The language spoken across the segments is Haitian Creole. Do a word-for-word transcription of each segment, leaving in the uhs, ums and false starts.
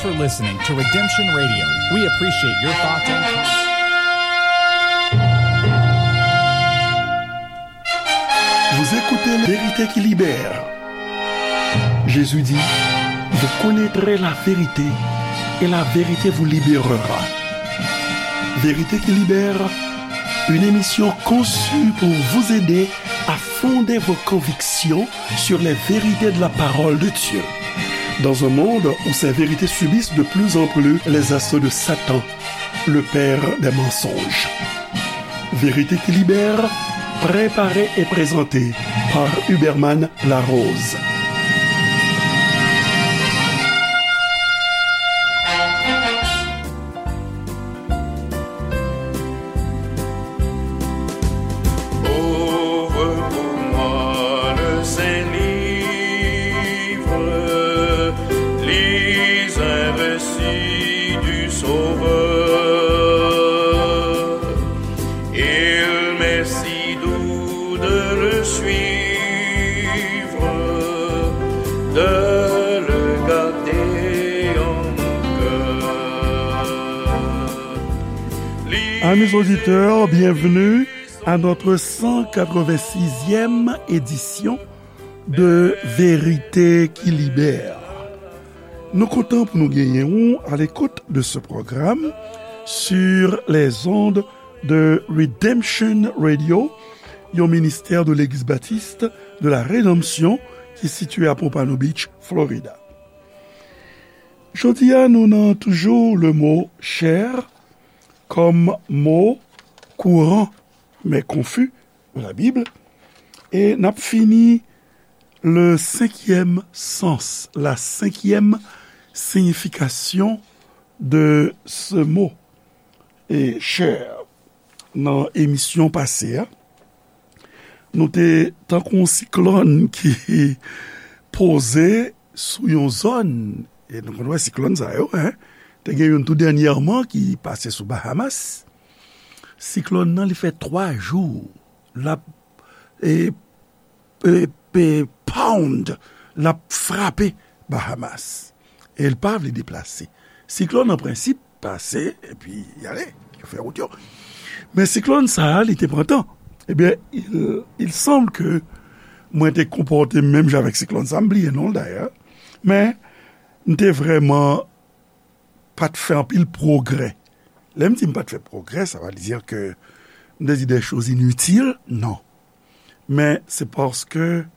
You're listening to Redemption Radio. We appreciate your thoughts and comments. Vous écoutez Vérité qui libère. Jésus dit, vous connaîtrez la vérité et la vérité vous libérera. Vérité qui libère, une émission conçue pour vous aider à fonder vos convictions sur les vérités de la parole de Dieu. Dans un monde où ces vérités subissent de plus en plus les assauts de Satan, le père des mensonges. Vérité qui libère, préparée et présentée par Huberman Larose. Ouvre pour moi le Saint-Livre, lis un récit du Sauveur. Il m'est si doux de le suivre, de le garder en mon cœur. Amis auditeurs, bienvenue à notre cent quatre-vingt-sixième édition de Vérité qui libère. Nou kontan pou nou genyen ou à l'écoute de ce programme sur les ondes de Redemption Radio, yon ministè de Legliz Batis de la Redanmsyon ki sitiye a Pompano Beach, Florida. Jodi a, nou nan toujou le mo chè kòm mo kouran, men konfi, de la Bible. E n ap fini le cinquième sens, la cinquième signification de ce mot. E chè, nan emisyon pase a, nou te tankou yon siklòn ki poze sou yon zòn. E nou konn wè siklòn sa yo, en. Te gen youn tou dènyèman ki pase sou Bahamas. Siklòn nan, li fè twa jou l ap, e, e, e, pound, l ap frape Bahamas. E l pa vle deplase. Siklòn, an prensip, pase, epi y ale, yo fè wout yo. Men siklòn sa a, li te pran tan. Ebyen, il, il semble que mwen te konpòte m menm jan avèk siklòn sa, m bliye non l dayè. Men, m te vrèman pa t fè anpil pwogrè. Lè m di m pa t fè pwogrè, sa pa vle di ke m te di des choses inutiles, non. Men se paske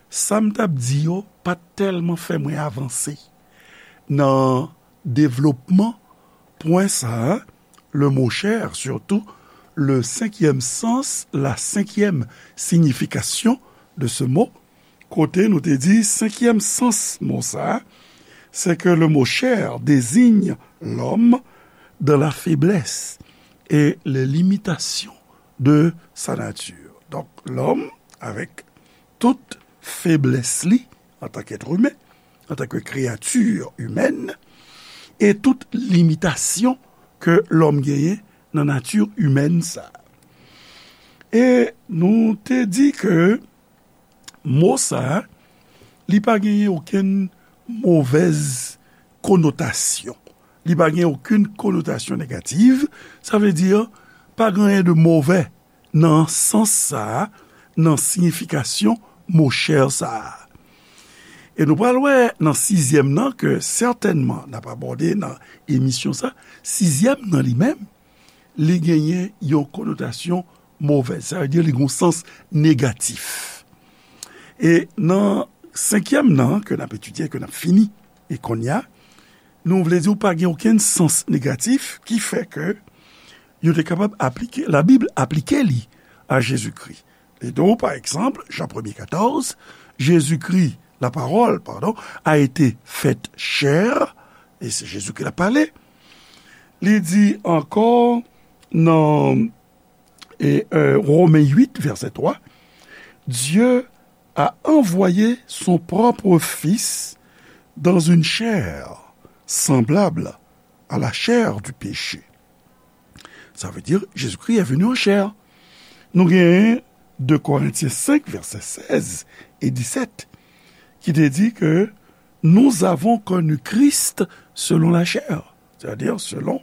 sa m t ap di yo pa t tèlman fè mwen avanse nan devlopman pwen sa a, le mot chè, surtout le cinquième sens, la cinquième signification de ce mot, kote nou te di senkyèm sans mo sa a, c'est que le mot chair désigne l'homme dans la faiblesse et les limitations de sa nature. Donk, lòm, avèk tout feblès li, antanke èt imen, antanke kreyati imèn, e tout limitasyon ke lòm genyen nan nati imèn sa a. E nou te di ke mo sa a, li pa genyen okenn movèz konotasyon. Li pa gen okenn konotasyon negatif. Sa vle di, pa gen anyen de movè nan sans sa a, nan siyifikasyon mo chè sa a. E nou pral wè nan sizyèm nan ke sètènman n ap abòde nan emisyon sa, sizyèm nan li menm, li genyen yon konotasyon movèz. Sa vle di li gen yon sans negatif. E nan senkyèm nan, ke n ap etidye, ke n ap fini, e kounye a, nou vle di w pa gen okenn sans negatif ki fè ke yo te kapab aplike, Labib aplike li a Jezikri. E donk, pa egzanp, Jan premye katòz, Jésus-Christ, la parole, pardon, a été faite chair, e se Jezi ki t ap pale. Li di ankò nan, e, e, Romen uit, vèsè twa, Dieu a envoyé son propre Fils dans une chair semblable à la chair du péché. Sa vle di, Jezikri est venu en chair. Nou genyen de Korentyen senk, vèsè sèz e disèt, ki te di ke Nous avons connu Christ selon la chair, c'est-à-dire selon,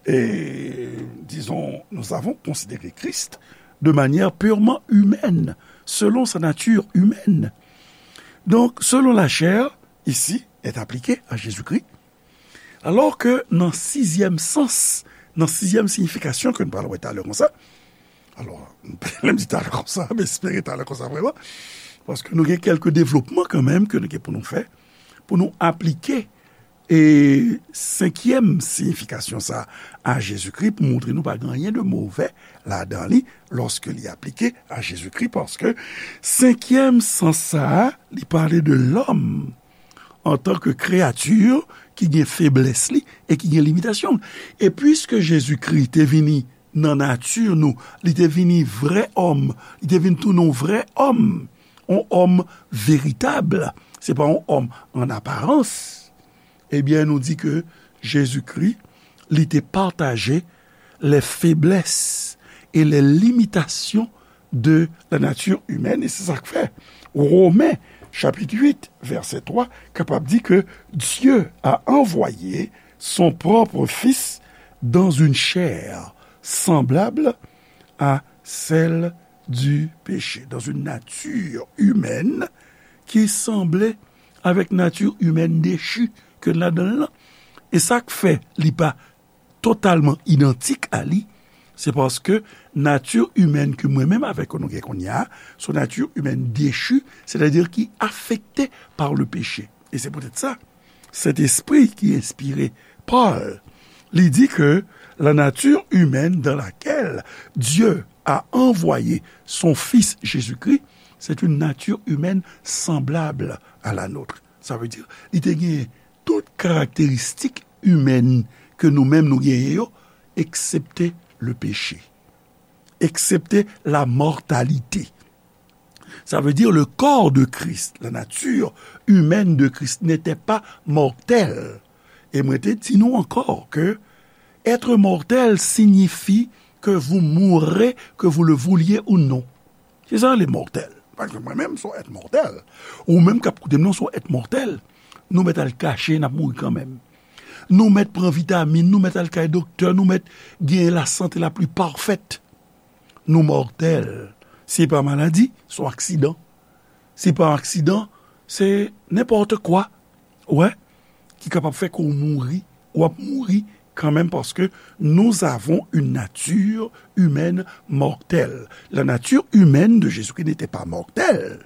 et, disons, nous avons considéré Christ de manière purement humaine, selon sa nature humaine. Donc, selon la chair, ici, est appliqué à Jésus-Christ, alors que nan sizyèm sans, nan sizyèm siyifikasyon ke nou pral wè talè konsa, alò, lè m di talè konsa, m espere talè konsa vrèman, paske nou gen kèlke devlopman kanmenm ke nou gen pou nou fè, pou nou aplike e senkyèm siyifikasyon sa a Jezikri, pou montre nou pa gen anyen de movè ladan li, lòske li aplike a Jezikri, paske senkyèm sans sa a, li pale de lòm antan ke kreyati ki gen feblès li e ki gen limitasyon l. E piske Jezikri te vini nan nati nou, li te vini vrè òm, li te vin tounen yon vrè òm, yon òm veritab, se pa yon òm an aparans. Ebyen, nou di ke Jezikri, li te pataje les faiblesses et les limitations de la nature humaine, e se sa k fè Women, chapit uit, vèsè twa, kapab di ke Dieu a envoyé son propre Fils dans une chair semblable à celle du péché, dans une nature humaine ki sanble avèk nati imèn dechi ke n ladan l lan. E sa k fè li pa totalman idantik a li, se paske nati imèn ke mwen menm avèk ou nou gen kounye a, se yon nati imèn dechi, sètadi ki afekte pa le peche. E se poutèt sa, Sentespri ki enspire Pòl, li di ke la nature humaine dans laquelle Dieu a envoyé son Fils Jésus-Christ, c'est une nature humaine semblable à la nôtre. Sa vle di, li te gen tout karakteristik imèn ke nou menm nou genyen yo, eksepte le peche, eksepte la mòtalite. Sa vle di, le corps de Christ, la nature humaine de Christ n'était pas mortelle. E mwen te di nou ankò ke être mortel signifie que vous mourrez, que vous le vouliez ou non. Se sa le mòtèl. Pa egzanp, mwen menm, se yon èt mòtèl. Ou menm k ap koute m nan, se yon èt mòtèl. Nou mèt al kache, n ap mouri kanmenm. Nou mèt pran vitamin, nou mèt al kay doktè, nou mèt gen la santé la pli pafèt. Nou mòtèl. Se pa maladi, se yon aksidan. Se pa aksidan, se nenpòt kwa. Wè, ki kapab fè ke w mouri, w ap mouri kanmenm, paske nous avons une nature humaine mortelle. La nature humaine de Jésus-Christ n'était pas mortelle.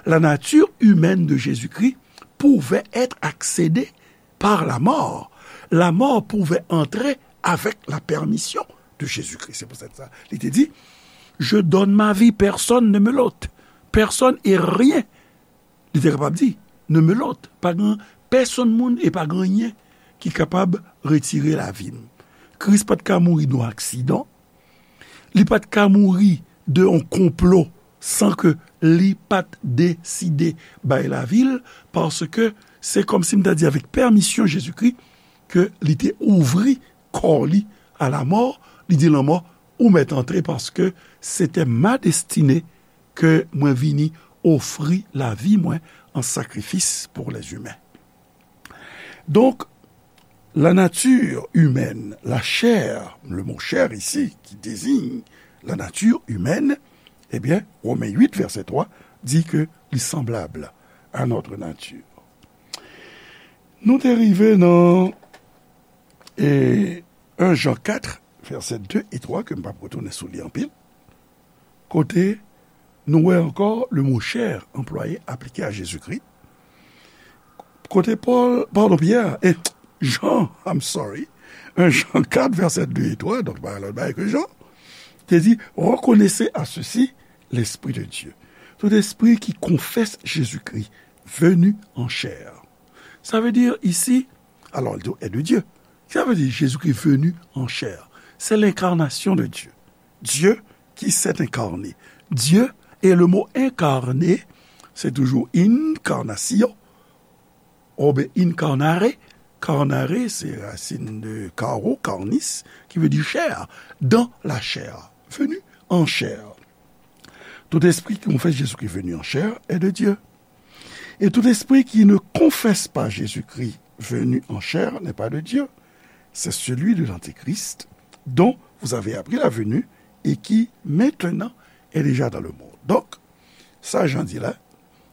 La nature humaine de Jésus-Christ pouvait être accédée par la mort. La mort pouvait entrer avec la permission de Jésus-Christ. Se pou sa li te di, je donne ma vie, personne ne me l'ôte. Personne et rien. Li te kapab di, ne me l'ôte. Pa gen pèsonn moun e pa gen anyen ki kapab retire lavi m. Kris pa t ka mouri de yon aksidan. Li pa t ka mouri de yon konplo san ke li pa t deside bay lavi l, paske se kòmsi m ta di avèk pèmisyon Jezikri ke li te ouvri kò li a la mò, li di lanmò, ou mèt antre paske se te ma destine ke mwen vini ofri lavi mwen an sakrifis pou les humains. Donk, la nature humaine, la chair, le mot chair ici, qui désigne la nature humaine, ebyen, Women uit, vèsè twa, di ke li sanblab a notre nature. Nou te rive nan, e, en Jan kat, vèsè de e twa, ke m p ap retounen sou li anpil, kote nou wè ankò le mo chair anplwaye aplike a Jezikri. Kote Pòl, padon, Pyè, e Jan, I'm sorry, en Jan kat, vèsè de e twa, donk pa lòt bagay ke Jan, te di, reconnaissez à ceci l'Esprit de Dieu. Tout espri qui confesse Jésus-Christ venu en chair. Sa vle di isi, alò, li di est de Dieu. Sa vle di Jezikri venu en chair. C'est l'incarnation de Dieu. Dieu qui s'est incarné. Dieu, et le mot incarné, se toujou incarnation, oubyen incarnare. Carnare, se rasin de caro, carnis, ki vle di chè, dans la chair, venu en chair. Tout esprit qui confesse Jésus-Christ venu en chair est de Dieu. Et tout esprit qui ne confesse pas Jésus-Christ venu en chair n'est pas de Dieu. C'est celui de l'Antéchrist dont vous avez appris la venue et qui maintenant est déjà dans le monde. Donk, sa Jan di la,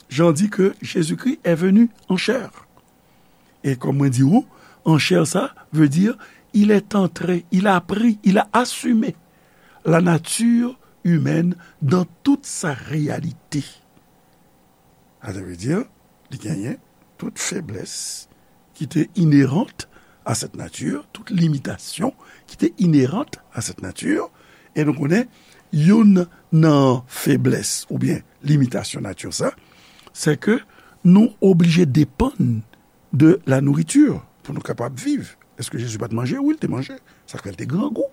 Jan di ke Jezikri est venu en chair. E kòm mwen di ou, en chair sa vle di, il est entré, il a pris, il a assumé la nature humaine dans toute sa réalité. Sa vle di, li genyen tout feblès ki te inhérente à cette nature, tout limitasyon ki te inhérente à cette nature. E nou konnen, youn nan feblès oubyen limitasyon nati sa, se ke nou oblije depann de la nourriture pou nou kapab viv. Èske Jezi pa t manje? Wi, l te manje. Sa k fè l te grangou.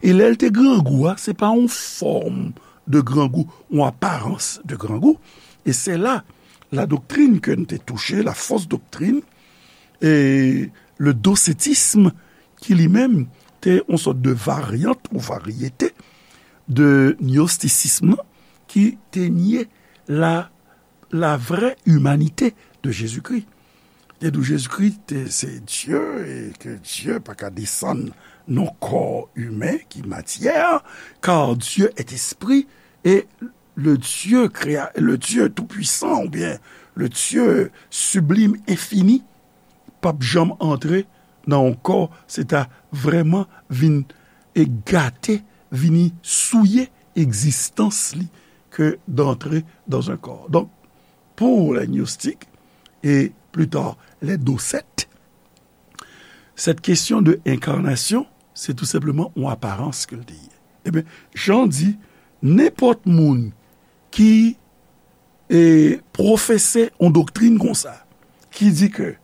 E lè l te grangou a, se pa yon fòm de grangou, yon aparans de grangou. E se la, la doktrin ke n te touche, la fausse doctrine, e le docetisme, ki li menm te yon sòt de varyant ou varyete de gnostisism nan, ki te nye la, la vraie humanité de Jésus-Christ. Te di w Jezikri te se Dye e ke Dye pa ka desann nan kò imen ki matyè, car Dieu est esprit et le Dieu créa, le Dieu tout-puissant oubyen le Dieu sublime, infini, p ap janm antre nan yon kò, se ta vrèman vin e gate, vini souye egzistans li ke d'entrer dans un corps. Donk, pour les gnostiques et plus tard les docetes, cette question de incarnation, se tou senpleman yon aparans ke l te ye. Ebyen, Jan di, nenpòt moun ki e pwofese yon doktrin konsa, ki di ke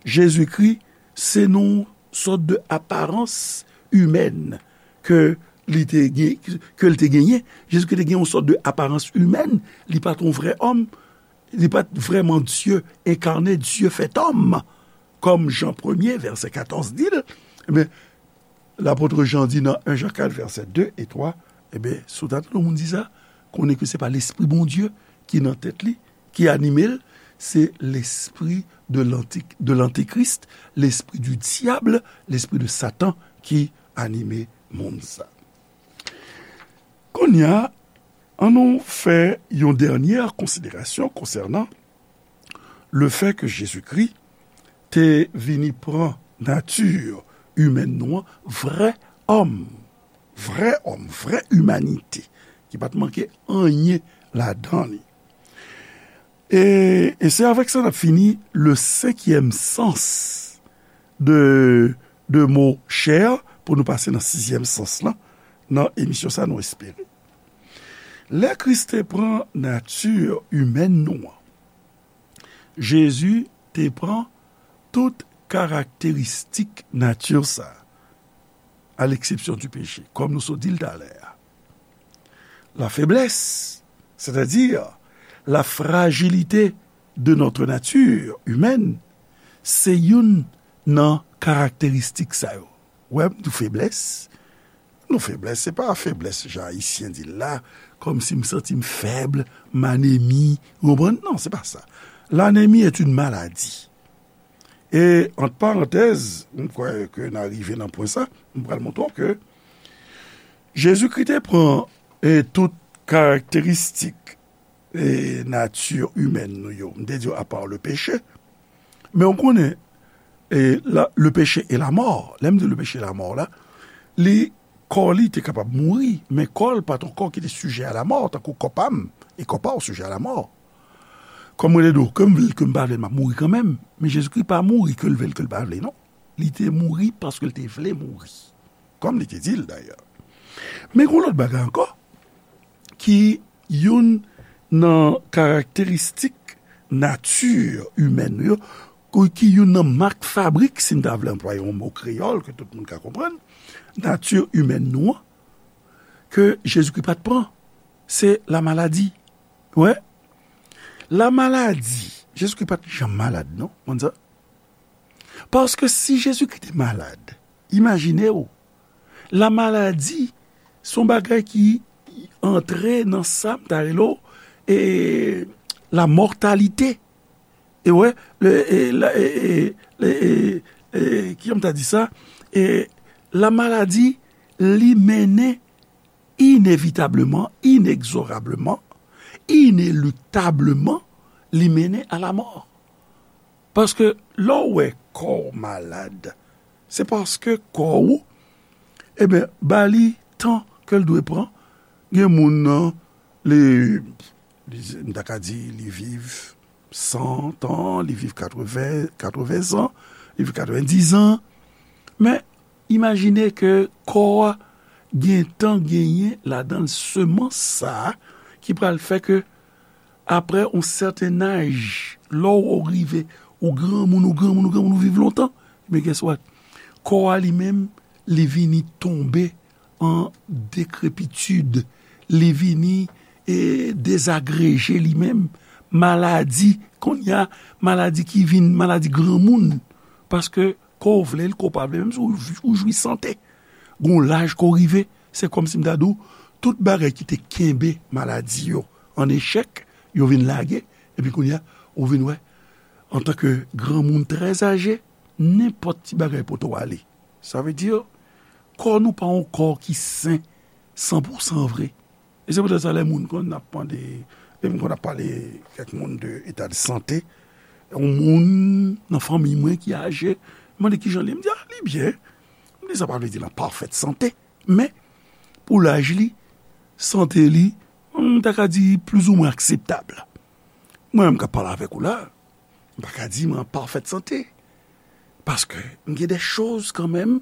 Jezikri se yon sòt de aparans imèn ke li te gen, ke l te genyen. Jezikri te gen yon sòt de aparans imèn, li pa t yon vrè òm, li pa t vrèman Dye enkarne, Dye fèt òm, kòm Jan premye, vèsè katòz di l, ebyen, lapot Jan di nan en Jan kat, vèsè de e twa, ebyen, si w ta tande yon moun di sa, konnen ke se pa Lespri Bondye ki nan tèt li, ki anime l, se lespri de lanti-, de lantikris, lespri di dyab, lespri de Satan ki anime moun sa. Kounye a, ann nou fè yon dènyè konsiderasyon konsènan le fè ke Jezikri te vini pran nati imèn nou an, vrè òm, vrè òm, vrè imanite, ki pa t manke anyen ladan li. E, e se avèk sa n ap fini le senkyèm sans de, de mo chair, pou nou pase nan sizyèm sans lan, nan emisyon sa nou espere. Lè Kris te pran nati imèn nou an, Jezi te pran tout karakteristik nati sa, à l'exception du péché, kòm nou sot di l talè a. La faiblesse, c'est-à-dire la fragilité de notre nature humaine, se youn nan karakteristik sa yo. Wè, m di w feblès. Non, feblès, se pa feblès jan Ayisyen di l la, kòmsi m santi m fèb, m anemi, ou konprann? Non, se pa sa. L'anémie est une maladie. E, ant parantèz, m kwè ke n a rive nan pwen sa, m pral montre w ke Jezikri te pran, e, tout karakteristik, e, nati imèn nou yo. M te di w, apa le péché. Men w konnen, e, la, le péché et la mort. Lè m di le péché et la mort la, li, kò li te kapab mouri, men kò l pa t yon kò ki te sijè a la mò, tankou kò pa m, e kò pa w sijè a la mò. Kòm mwen te di w, ke m vle l, ke m pa vle l, m ap mouri kanmenm. Men Jezikri pa mouri ke l vle l, ke l pa vle, non. Li te mouri paske l te vle mouri. Kòm li te di l, dayè. Men gen yon lòt bagay ankò, ki youn nan karakteristik nati imèn nou yo, ki youn nan mak fabrik, si n ta vle anplwaye yon mo kreyòl ke tout moun ka konprann, nati imèn nou an, ke Jezikri pa t pran, se lamaladi. Wè, lamaladi, Jezikri pa t janm malad, non, konn sa? Paske si Jezikri te malad, imajine w, lamaladi, se yon bagay ki antre nan sa m ta rele w, e, la mòtalite. E wè, le, e, la, e, e, le, e, e, kijan m ta di sa? E, la maladi, li mennen inevitableman, inegzorableman, ineluktableman, li mennen a la mò. Paske lè w wè kò w malad, se paske kò w, ebyen, ba li tan ke l dwe pran. Gen moun nan, li, li, m ta ka di, li viv san tan, li viv katreven, katreven zan, li viv katrevendis zan. Men, imajine ke kò a gentan genyen ladan l semans sa a ki pral fè ke, aprè yon sèten aj, lè w rive, ou granmoun, ou granmoun, ou granmoun, ou viv lontan, men guess what? Kò a li menm, li vini tonbe an dekrepitid, li vini, e, dezagreje li menm, maladi, kounye a, maladi ki vin maladi granmoun, paske kò w vle l, kò w pa vle, menm si w, w jwi sante, gon laj kò w rive, se kòmsi m ta di w, tout bagay ki te kenbe maladi yo an echèk, yo vin lage, epi kounye a, ou vin wè, antanke granmoun trè aje, nenpòt ti bagay pote w ale. Sa vle di, kò nou pa yon kò ki sen san pou san vre. E se poutèt sa, lè moun konn ap mande, lè moun konn ap pale kèk moun de eta de sante, yon moun nan fanmi mwen ki aje, mande kijan li ye, m di, a, li byen. M di, sa pa vle di l an pafèt sante, men pou laj li, sante li, m ta ka di plizoumwen akseptab. Mwen menm k ap pale avèk ou la, m pa ka di m an pafèt sante. Paske m gen de choz kanmenm,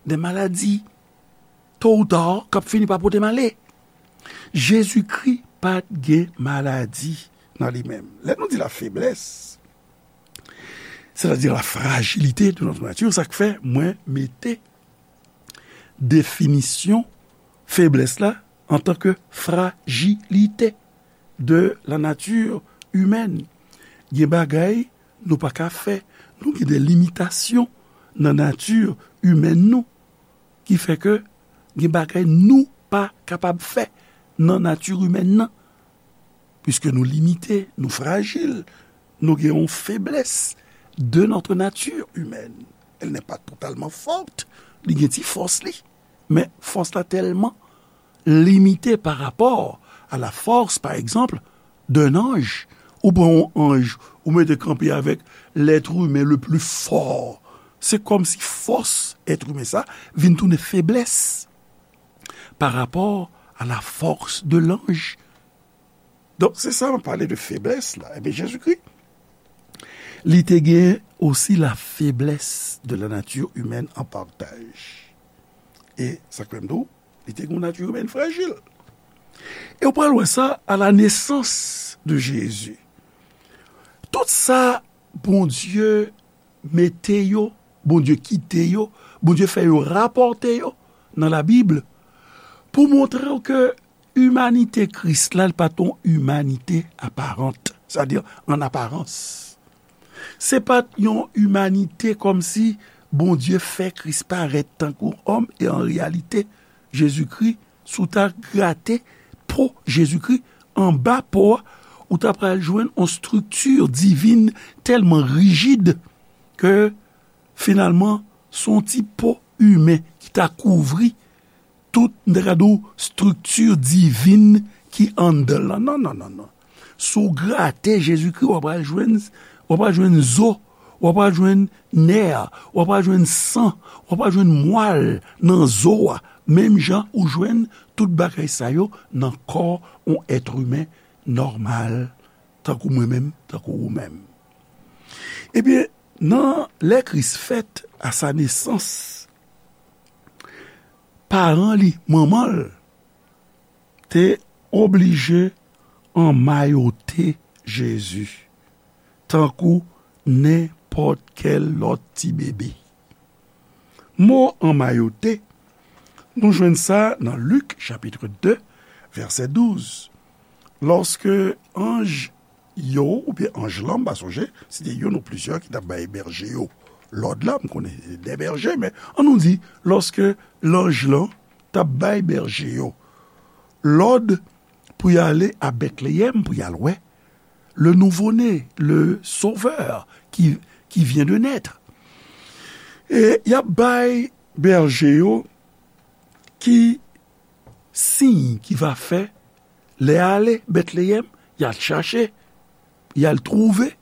de maladi, to ou ta, k ap fini pa pote m ale. Jezikri pa t gen maladi nan li menm. Lè nou di la faiblesse, c'est-à-dire la fragilité de notre nature, sa k fè mwen mete definisyon feblès la antanke frajilite de la nature humaine. Gen bagay nou pa ka fè. Nou gen de limitasyon nan nati imèn nou ki fè ke gen bagay nou pa kapab fè nan nati imèn nan. Puiske nou limite, nou frajil, nou gen yon feblès de notre nature humaine. Elle n'est pas totalement forte, li gen ti fòs li. Men fòs la tèlman limite pa rapò a la force, par exemple, d'un ange. Ou pran yon anj, ou mete kanpe avèk l'être humain le plus fort. Se kòmsi fòs èt imen sa vin tounen feblès pa rapò a la force de l'ange. Donk, se sa m ap pale de feblès la. Ebyen, Jezikri, li te gen osi la faiblesse de la nature humaine en partage. E sa k fè m di w, li te gen yon nati imèn frajil. E w pral wè sa à la naissance de Jésus. Tout sa Bondye mete yo, Bondye kite yo, Bondye fè yo rapòte yo nan Labib pou montre w ke imanite Kris la, li pa t yon imanite aparant, sètadi an aparans. Se pa t yon imanite kòmsi Bondye fè Kris parèt tankou òm, e an reyalite, Jezikri, si w ta grate po Jezikri, anba po a, ou ta pral jwenn yon estrikti divin tèlman rijid ke, finalman, se yon ti po imen ki ta kouvri tout, m ta ka di w, estrikti divin ki anndan l lan. Non, non, non, non. Si w grate Jezikri, w ap pral jwenn, w ap pral jwenn zo, w ap pral jwenn nè, w ap pral jwenn san, w ap pral jwenn mwal nan zo a, menm jan ou jwenn tout bagay sa yo nan kò yon èt imen nòmal, tankou mwen menm, tankou ou menm. Ebyen, nan lè Kris fèt, à sa naissance, paran li, manman l, te oblije anmayote Jezi, tankou nenpòt kèl lòt ti bebe. Mo anmayote, nou jwenn sa nan Lik, chapit de, vèsè douz. Lòske anj yo, oubyen anj lan, m pa sonje, si te youn ou plizyè ki t ap bay bèje yo lòd la, m konnen se de bèje, men ann nou di, lòske lanj lan t ap bay bèje yo lòd pou y ale a Bètleyèm, pou y al wè le nouveau-né, le Sauveur qui, qui vient de naître. E y ap bay bèje yo ki siy ki va fè lè y ale Bètleyèm, y al chache, y al twouve,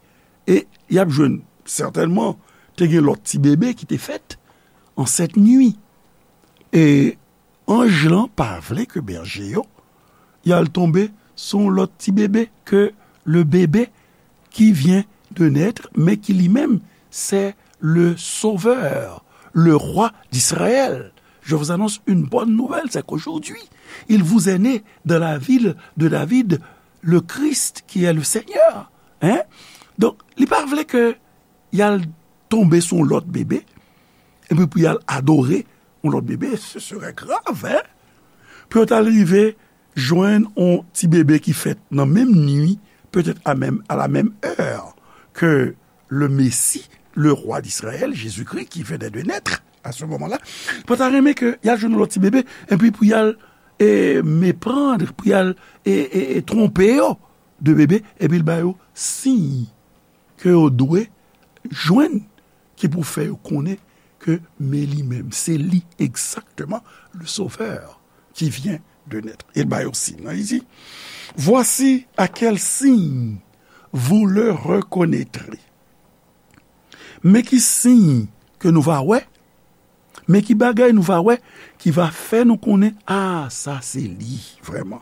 e y ap jwenn, sètènman, te gen lòt ti bebe ki te fèt ansèt nwi. E anj lan pa vle ke bèje yo y al tonbe sou yon lòt ti bebe ke le bébé qui vient de naître, mais qui lui-même, c'est le Sauveur, le Roi d'Israël. Je vous annonce une bonne nouvelle, c'est qu'aujourd'hui, il vous est né dans la ville de David le Christ qui est le Seigneur. Hein? Donk, li pa vle ke y al tonbe sou yon lòt bebe, epi pou y al adore yon lòt bebe, ce serait grave, hein? Pou yo t al rive jwenn yon ti bebe ki fèt nan menm nwi, peut-être à même, à la même heure que le Messie, le roi d'Israël, Jésus-Christ, qui venait de naître à ce moment-là, pa ta renmen ke y al jwenn yon lòt ti bebe, epi pou y al e, meprann, pou y al e, e, e twonpe yo de bebe, epi l ba yo siy ke yo dwe jwenn ki pou fè yo konnen ke men li menm, se li egzakteman, le Sauveur qui vient de naître. E l ba yo siy nan, li di, Voici à quel signe vous le reconnaîtrez. Men ki siy ke nou va wè, men ki bagay nou va wè ki va fè nou konnen, a, sa se li, vrèman.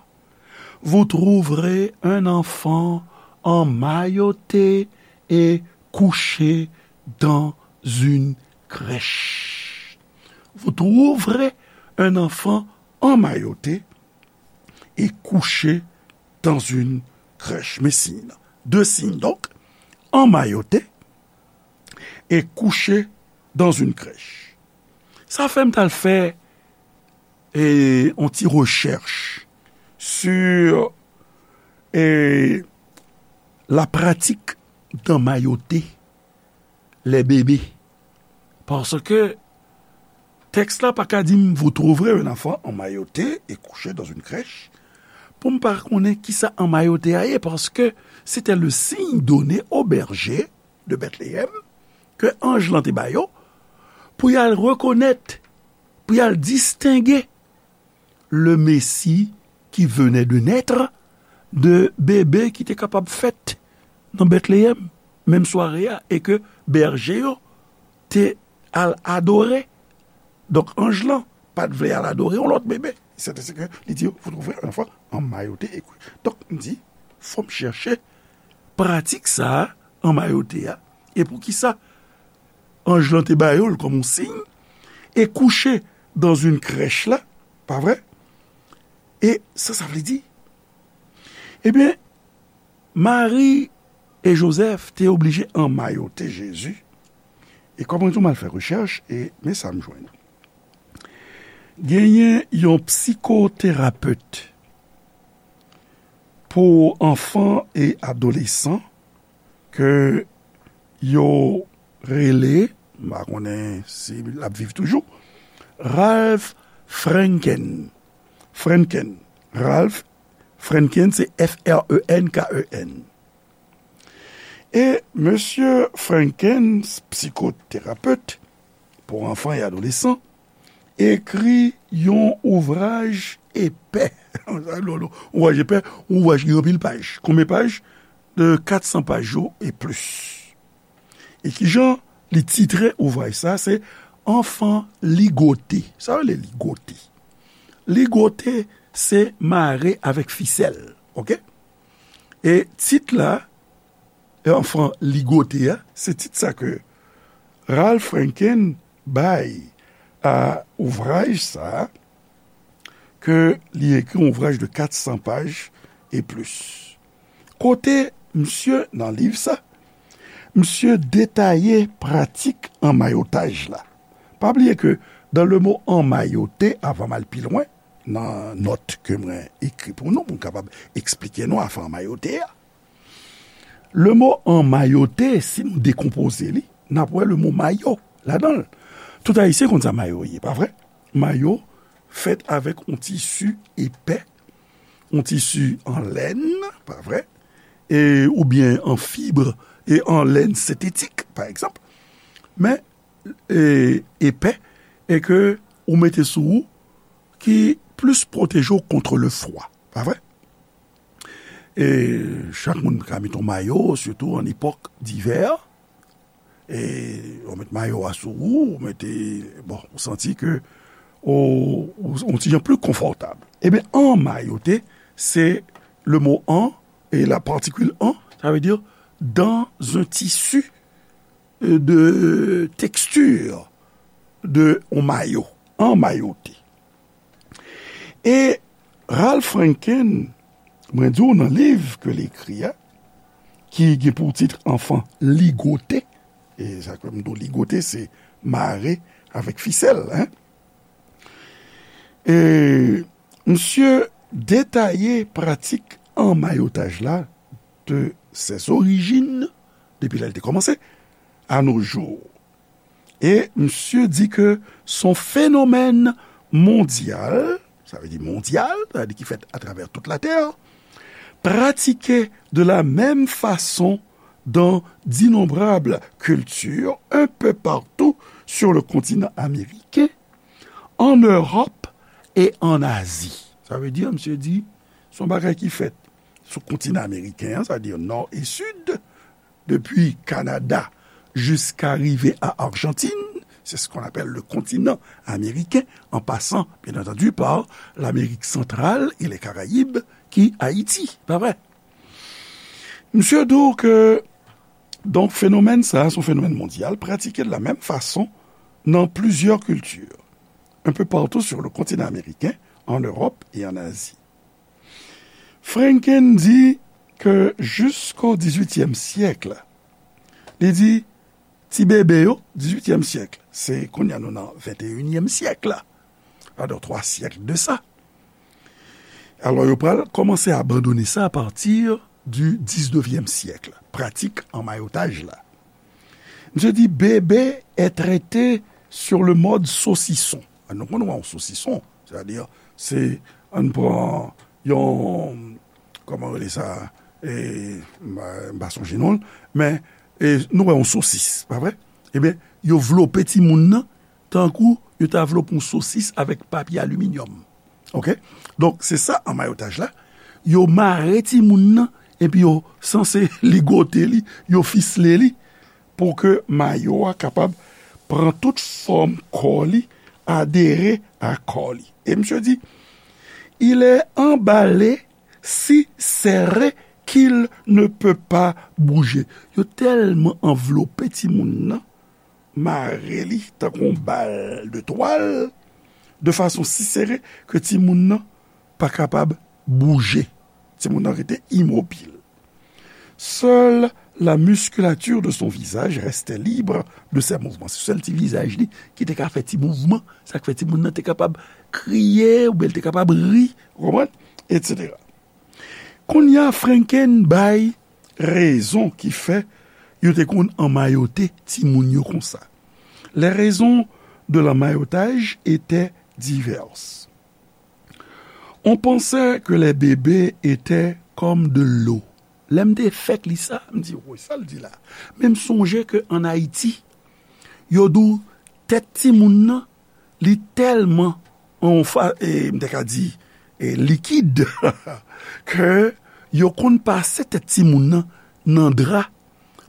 Vous trouverez un enfant emmailloté et couché dans une crèche. Vous trouverez un enfant emmailloté et couché dans une crèche. Men siy nan. De siy, donk, emmailloté et couché dans une crèche. Sa fè m t al fè e, yon ti rechèch sur e, la pratique d'emmailloter les bébés. Paske tèks la pa ka di m, vous trouverez un enfant emmailloté et couché dans une crèche, pou m pa konnen kisa anmayote a ye, paske se te le signe donné aux bergers de Bethléem ke anj lan te ba yo pou y al rekonèt, pou y al distenge le Messie qui venait de naître de bebe ki te kapab fèt nan Bethléem menm sware a e ke bèje yo te al adore. Donk, anj lan pa t vle al adore yon lòt bebe. C'est ainsi que li di, vous trouverez un enfant emmailloté et couché. Donk, m di, fò m chèche pratik sa a, anmayote a, e poukisa anj lan te ba yo l kòm yon siy, et couché dans une crèche la, pa vre? E sa sa vle di? Ebyen, Mari e Jozèf te oblije anmayote Jezi. E kòm mwen di w, m al fè rechèch, e men sa m jwenn. Genyen yon psikoterapet pou anfan e adolesan ke yo rele, m pa konnen si l ap viv toujou, Ralph Frenken. Frenken. Ralph Frenken, se F R E N K E N. E mesye Frenken, psikoterapet pou anfan e adolesan, ekri yon ouvraj epè. Ouvraj epè, yon ouvraj ki gen anpil paj. Konbyen paj? De kat san paj yo e plis. E kijan li titre ouvraj sa? Se Anfan Ligote. Sa vle ligote? Ligote, se mare avèk fisèl, oke? E tit la, Anfan Ligote a, se tit sa ke Ralph Frenken bay a ouvraj sa a, ke li ekri yon ouvraj de kat san paj e plis. Kote misye, nan liv sa, misye detaye pratik anmayotaj la. Pa bliye ke dans le mot emmailloter, avan m al pi lwen, nan nòt ke mwen ekri pou nou, pou m kapab eksplike nou afè anmayote a. Le mot emmailloter, si nou dekonpoze li, n ap wè le mot mayo ladan l. Tout Ayisyen konn sa mayo ye, pa vre? Mayo fèt avèk yon tisi epè, yon tisi an lèn, pa vre? e, oubyen an fib e an lèn sentetik, pa egzanp, men e, epè, e ke ou mete sou ou, ki plis pwoteje w kont le fwa, pa vre? E chak moun ka mete yon mayo, sitou an epòk divè. E ou met mayo a sou ou, ou mete, bon, ou santi ke ou, ou, ou ti jan pli konfòtab. Ebyen, anmayote, se le mo an e la particule an, ça veut dire dans un tissu de texture de yon mayo, anmayote. E Ralph Franken, mwen di w nan liv ke l ekri a, ki gen pou tit Enfant ligoté, e sa ke m di w ligoté, se mare avèk fisèl, hein. E misye detaye pratik anmayotaj la de ses origines, depi lè l te kòmanse, à nos jours. E misye di ke son fenomèn mondyal, sa vle di mondyal, sa vle di ki fèt atravè tout latè, pratiqué de la même façon dans d'innombrables cultures un peu partout sur le continent américain, en Europe et en Asie. Sa vle di, misye di, se yon bagay ki fèt sou kontinan ameriken an, sa vle di nò e sid, depi Kanada jiska rive a Arjantin, c'est ce qu'on appelle le continent américain, en passant, bien entendu, par l'Amérique centrale et les Caraïbes, ki Ayiti, pa vre? Misye di w ke, donk, fenomèn sa a, se yon fenomèn mondyal, pratike de la menm fason nan plizyè kilti, un peu partout sur le continent américain, en Europe et en Asie. Franken di ke jisko dizuityèm syèk, li di, ti bebe yo, dizuityèm syèk, se kounye a nou nan venteyinyèm syèk la, alò twa syèk de sa. Alò, yo pral kòmanse abandone sa apati di diznevyèm syèk, pratik anmayotaj la. Misye di, bébé est traité sur le mode saucisson. A, nou konn wè yon sosison, sètadi, se, ann pran yon, kòman rele sa, e, m pa, m pa sonje non l, men, e, nou wè yon sosis, pa vre? Ebyen, yo vlope timoun nan, tankou yo ta vlope yon sosis avèk papye aliminyòm. Oke? Donk, se sa anmayotaj la. Yo mare timoun nan, epi yo sanse ligote li, yo fisle li, pou ke mayo a kapab pran tout fòm kò li, adere a kò li. E misye di, il est emballé si serré qu'il ne peut pas bouger. Yo tèlman anvlope timoun nan, mare li tankou yon bal de twal, de fason si sere ke timoun nan pa kapab bouje. Timoun nan rete imobil. Seule la musculature de son visage restait libre de ses mouvements. Se sèl ti vizaj li ki te ka fè ti mouvman, sa k fè timoun nan te kapab kriye, oubyen l te kapab ri, ou konprann? Etsetera. Kounye a, Franken bay rezon ki fè yo te konn anmayote timoun yo konsa. Les raisons de l'emmaillotage étaient diverses. On pensait que les bébés étaient comme de l'eau. Lè m te fèk li sa, m di, woy, sa l di la? Men m sonje ke ann Ayiti, yo di w tèt timoun nan, li tèlman, anfa, e, m te ka di, e, likid, ke yo konn pase tèt timoun nan nan dra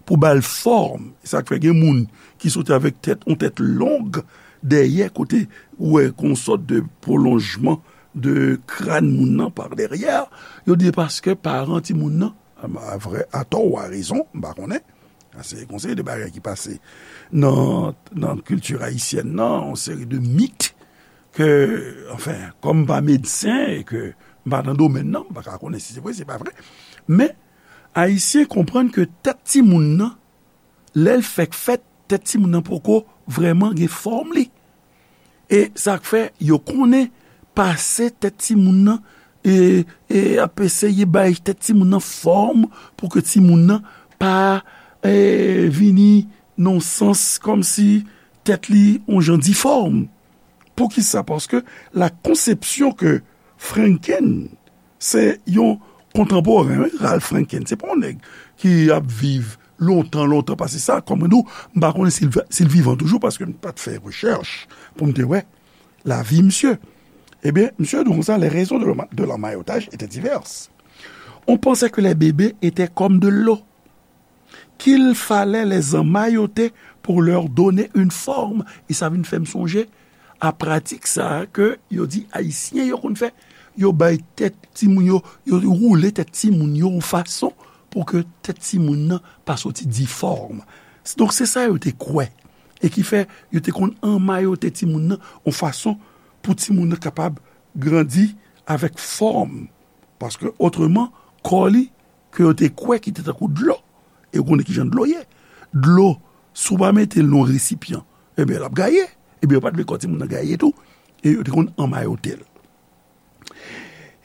pou ba l fòm. E sa k fè gen moun ki soti avèk tèt, yon tèt long dèyè, kote ou wè kon sòt de pwolonjman de kràn moun nan par dèyè. Yo di paske paran timoun nan, a, a vrè, atò ou a rezon, m pa konnen. Se konsa de bagay ki pase nan, nan kilti ayisyèn nan, yon seri de mit ke, anfen, kòm m pa medsen e ke m pa nan domèn nan, m pa ka konnen si se vre, se pa vre. Men, Ayisyen konprann ke tèt timoun nan, lè l fèk fèt, tèt timoun nan poko vrèman gen fòm li. E sa k fè yo konnen pase tèt timoun nan, e, e ap eseye bay tèt timoun nan fòm pou ke timoun nan pa, e, vini nan yon sans kòmsi tèt li yon jan difòm. Poukisa? Paske la konsepsyon ke Franken, se yon kontanporen, wi, Ralph Franken. Se pa yon nèg ki ap viv lontan, lontan pase sa. Kòm mwen di w, m pa konnen si l, si l vivan toujou, paske m pa t fè rechèch pou m te wè lavi misye. Ebyen, misye di konsa, les raisons de l'emma-, de l'emmaillotage étaient diverses. On pensait que les bébés étaient comme de l'eau, qu'il fallait les emmailloter pour leur donner une forme. E sa vin fè m sonje a pratik sa a ke yo di Ayisyen yo konn fè. Yo bay tèt timoun yo, yo woule tèt timoun yo yon fason pou ke tèt timoun nan pa soti difòm. Donk, se sa yo te kwè. E ki fè, yo te konn anmayote timoun nan yon fason pou timoun nan kapab grandi avèk fòm. Paske, otreman, kò li, ke yo te kwè ki te tankou dlo. E ou konnen ki jan dlo ye. Dlo, si w pa mete l nan yon resipyan, ebyen, l ap gaye. Ebyen, yo pa t vle kò timoun nan gaye tou. E yo te konn anmayote l.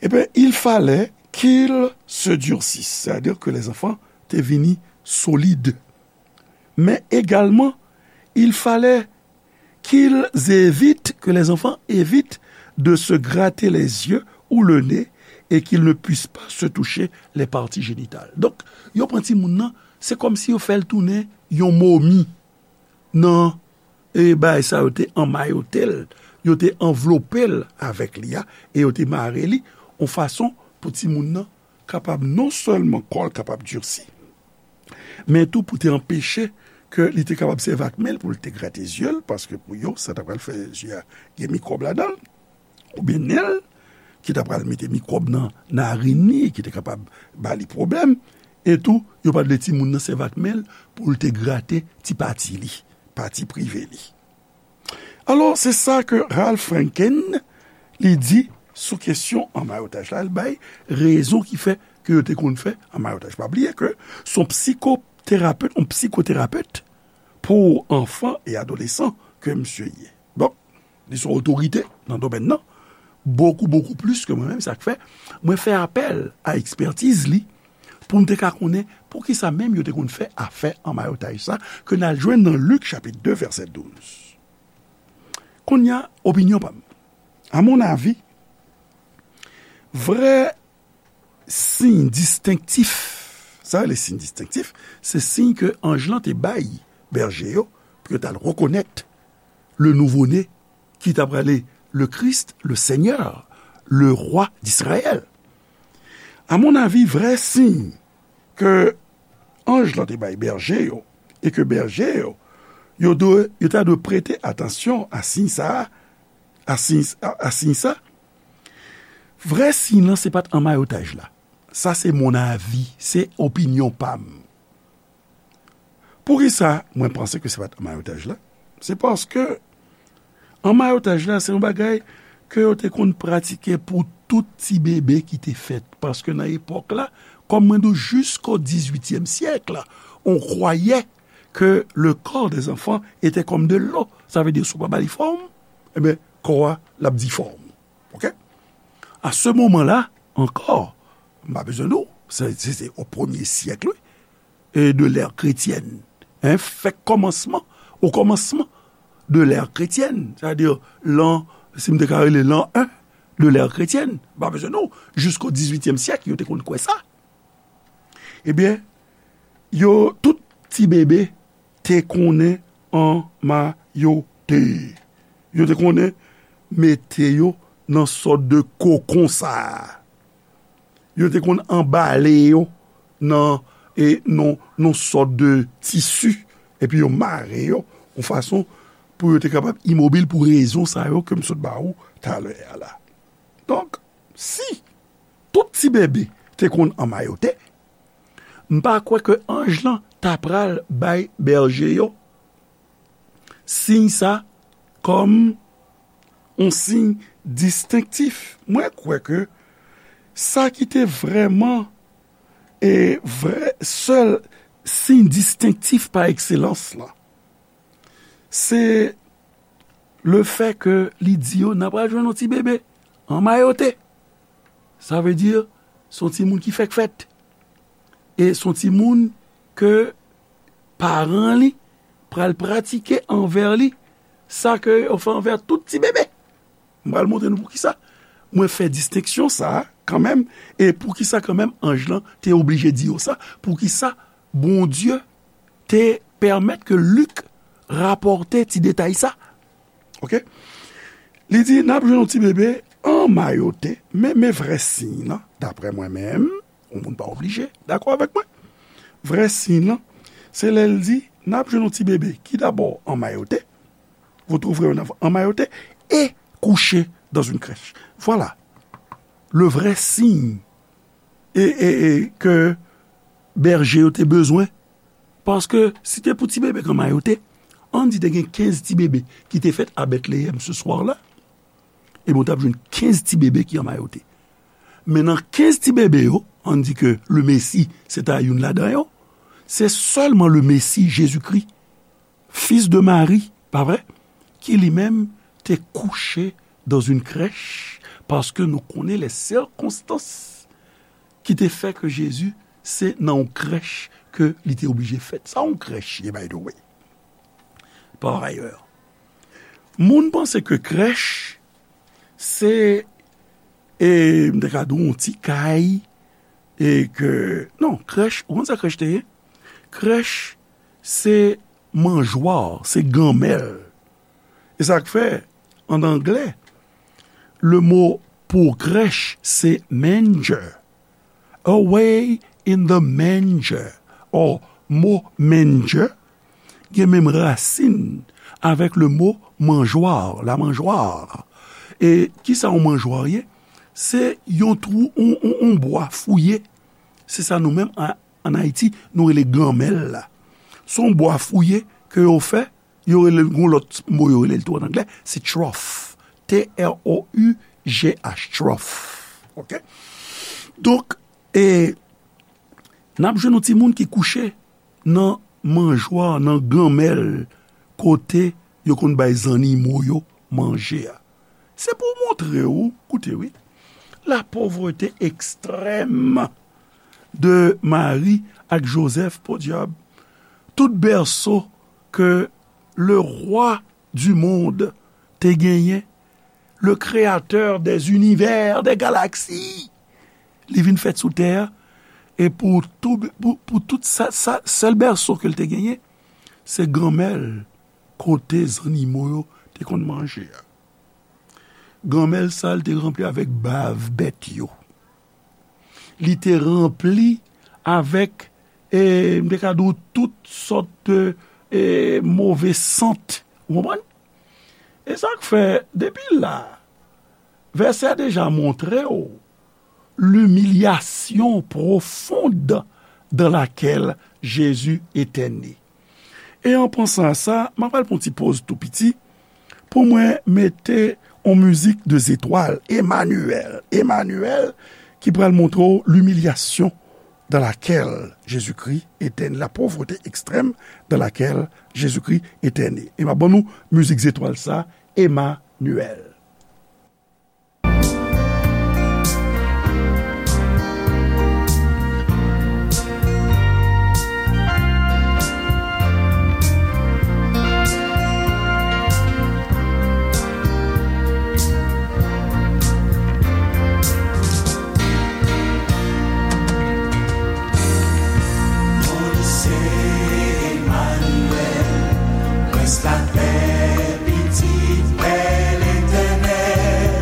Ebyen, il fallait qu'ils se durcissent, c'est-à-dire que les enfants te vini solid. Mais également, il fallait qu'ils évitent, que les enfants évitent de se gratter les yeux ou le nez et qu'ils ne puissent pas se toucher les parties génitales. Donk, yo pran timoun nan, se kòmsi yo fè l tounen yon momi nan, e, bagay sa yo te anmayote l, yo te anvlope l avèk li a, e yo te mare li yon fason pou timoun nan kapab non sèlman kò l kapab dirsi, men tou pou te anpeche ke li te kapab sèvi ak men l pou l te grate zye l, paske pou yo, sa ta pral fè zye a gen mikwòb ladan l, oubyen nen l, ki ta pral mete mikwòb nan narin li, ki te kapab ba li pwoblèm, e tou, yo pa t vle timoun nan sèvi ak men l pou l te grate ti pati li, pati prive li. Alò, se sa ke Ralph Franken, li di sou kesyon anmayotaj la, l bay rezon ki fè ke yo te konn fè anmayotaj. Pa bliye ke se yon psikoterapet, yon psikoterapet pou enfants et adolescents ke misye ye. Donk, li se yon otorite nan domèn nan, bokou, bokou plis ke mwen menm, sa k fè mwen fè apèl a ekspètiz li pou m te ka konnen poukisa menm yo te konn fè afè anmayotaj sa, ke n al jwenn nan Lik chapit de, vèsè douz. Kounye a, opinyon pa m. A mon avi, vrè siy distenktif, sa rele siy distenktif, se siy ke anj lan te bay bèje yo pou yo t al rekonèt le nouveau-né ki t ap rele le Christ, le Seigneur, le Roi d'Israël. A mon avi, vrè siy ke anj lan te bay bèje yo, e ke bèje yo, yo dwe, yo ta dwe prete atansyon a siy sa a, a siy, a, a siy sa, vrè siy lan se pa t anmayotaj la. Sa se mon avi, se opinyon pa m. Poukisa mwen panse ke se pa t anmayotaj la? Se paske anmayotaj la, se yon bagay ke yo te konn pratike pou tout ti bebe ki te fèt. Paske nan epòk la, kòm mwen di w, jisko dizuityèm syèk la, on kwayè ke le corps des enfants était comme de l'eau. Sa vle di, si w pa ba li fòm, ebyen, kò a, l ap difòm. Oke? A se moman la, ankò, m pa bezwen di w, se, se, se o premye syèk, wi, e de l'ère chrétienne. Hein, fèk kòmansman, o kòmansman de l'ère chrétienne, sètadi lan, si m te ka rele lan en de l'ère chrétienne, m pa bezwen di w, jisko dizuityèm syèk, yo te konn kwè sa. Ebyen, yo, tout ti bebe te konnen anmayote. Yo te konnen mete yo nan sòt de kokon sa a. Yo te konn anbale yo nan, e, nan, nan sòt de tisi, epi yo mare yo yon fason pou yo te kapab imobil pou rezon sa yo ke m sot ba ou talè a la. Donk, si tout ti bebe te konn anmayote, m pa kwè ke anj lan ta pral bay bèje yo siy sa kòm yon siy distenktif. Mwen kwè ke sa ki te vrèman, e, vrè, sèl siy distenktif pa ekselans lan, se le fè ke li di yo, n a pral jwenn yon ti bebe anmayote. Sa vle di, se yon timoun ki fèk fèt. E se yon timoun ke paran li pral pratike anvè li sa ke yo fè anvè tout ti bebe. M pral montre nou poukisa mwen fè distenksyon sa a kanmenm. E poukisa kanmenm anj lan te oblije di yo sa? Poukisa Bondye te pèmèt ke Lik rapòte ti detay sa? Oke? Li di, n ap jwenn yon ti bebe anmayote, men, men vrè siy lan, daprè mwen menm, yon moun pa oblije dakò avèk mwen. Vrè siy lan, se lè l di, n ap jwenn yon ti bebe ki dabò anmayote, vous trouverez un enfant emmailloté et couché dans une crèche. Voilà le vrai signe e, e, e ke bèje yo te bezwen. Paske si te pou ti bebe k anmayote, ann di te gen kenz ti bebe ki te fèt a Betleyèm se swa la, ebyen, w t ap jwenn kenz ti bebe ki anmayote. Men nan kenz ti bebe yo, ann di ke le Messie, se ta youn ladan yo, se sèlman le Messie, Jezikri, fils de Marie, pa vre? Ki li menm te kouche dans une crèche, paske nou konnen les circonstances ki te fè ke Jezi se nan yon krèch ke li te oblije fèt. Sa yon krèch ye, by the way. Par ailleurs, moun panse ke krèch se, e, m te ka di w yon ti kay, e ke, non, krèch, ou konn sa krèch te ye? Krèch se manjwa, se ganmèl. E sa k fè, an anglè, le mo pou krèch se manger. Away in the manger, or mo manger, gen menm rasin avèk le mo manjwa, la mangeoire. E kisa yon manjwa ye? Se yon twou, yon, yon, yon bwa fouye. Se sa nou menm, an, ann Ayiti, nou rele ganmèl la. Se yon bwa fouye ke yo fè, yo rele l, gon lòt mo yo rele l tou an anglè, se trough. T R O U G H, trough. Oke? Donk, e, n ap jwenn yon timoun ki kouche nan manjwa, nan ganmèl, kote yo konn bay zannimo yo manje a. Se pou montre w, koute wi, la pauvreté extrême de Mari ak Jozèf, podyab, tout bèso ke le rwa du monde te genyen, le créateur des univers, des galaxies, li vin fèt sou tè a, e pou tou, pou, pou tout sa, sa, sèl bèso ke l te genyen, se ganmèl kote zannimo yo te konn manje a. Ganmèl sa a, li te ranpli avèk bav bèt yo. Li te ranpli avèk, e, m te ka di w, tout sòt de, e, move sant. Ou konprann? E sa k fè, depi la, vèsè a deja montre w l'humiliation profonde dans laquelle Jésus était né. E an pansan a sa, m ap al pran ti poz tou piti pou mwen mete on mizik de zetwal, Emmanuel. Emmanuel, ki pral montre w l'humiliation dans laquelle Jésus-Christ était né, la pauvreté extrême dans laquelle Jésus-Christ était né. E m ap ban nou mizik zetwal sa, Emmanuel. Non li se Emmanuel, Prens lapè, Pitit Pè Letènèl,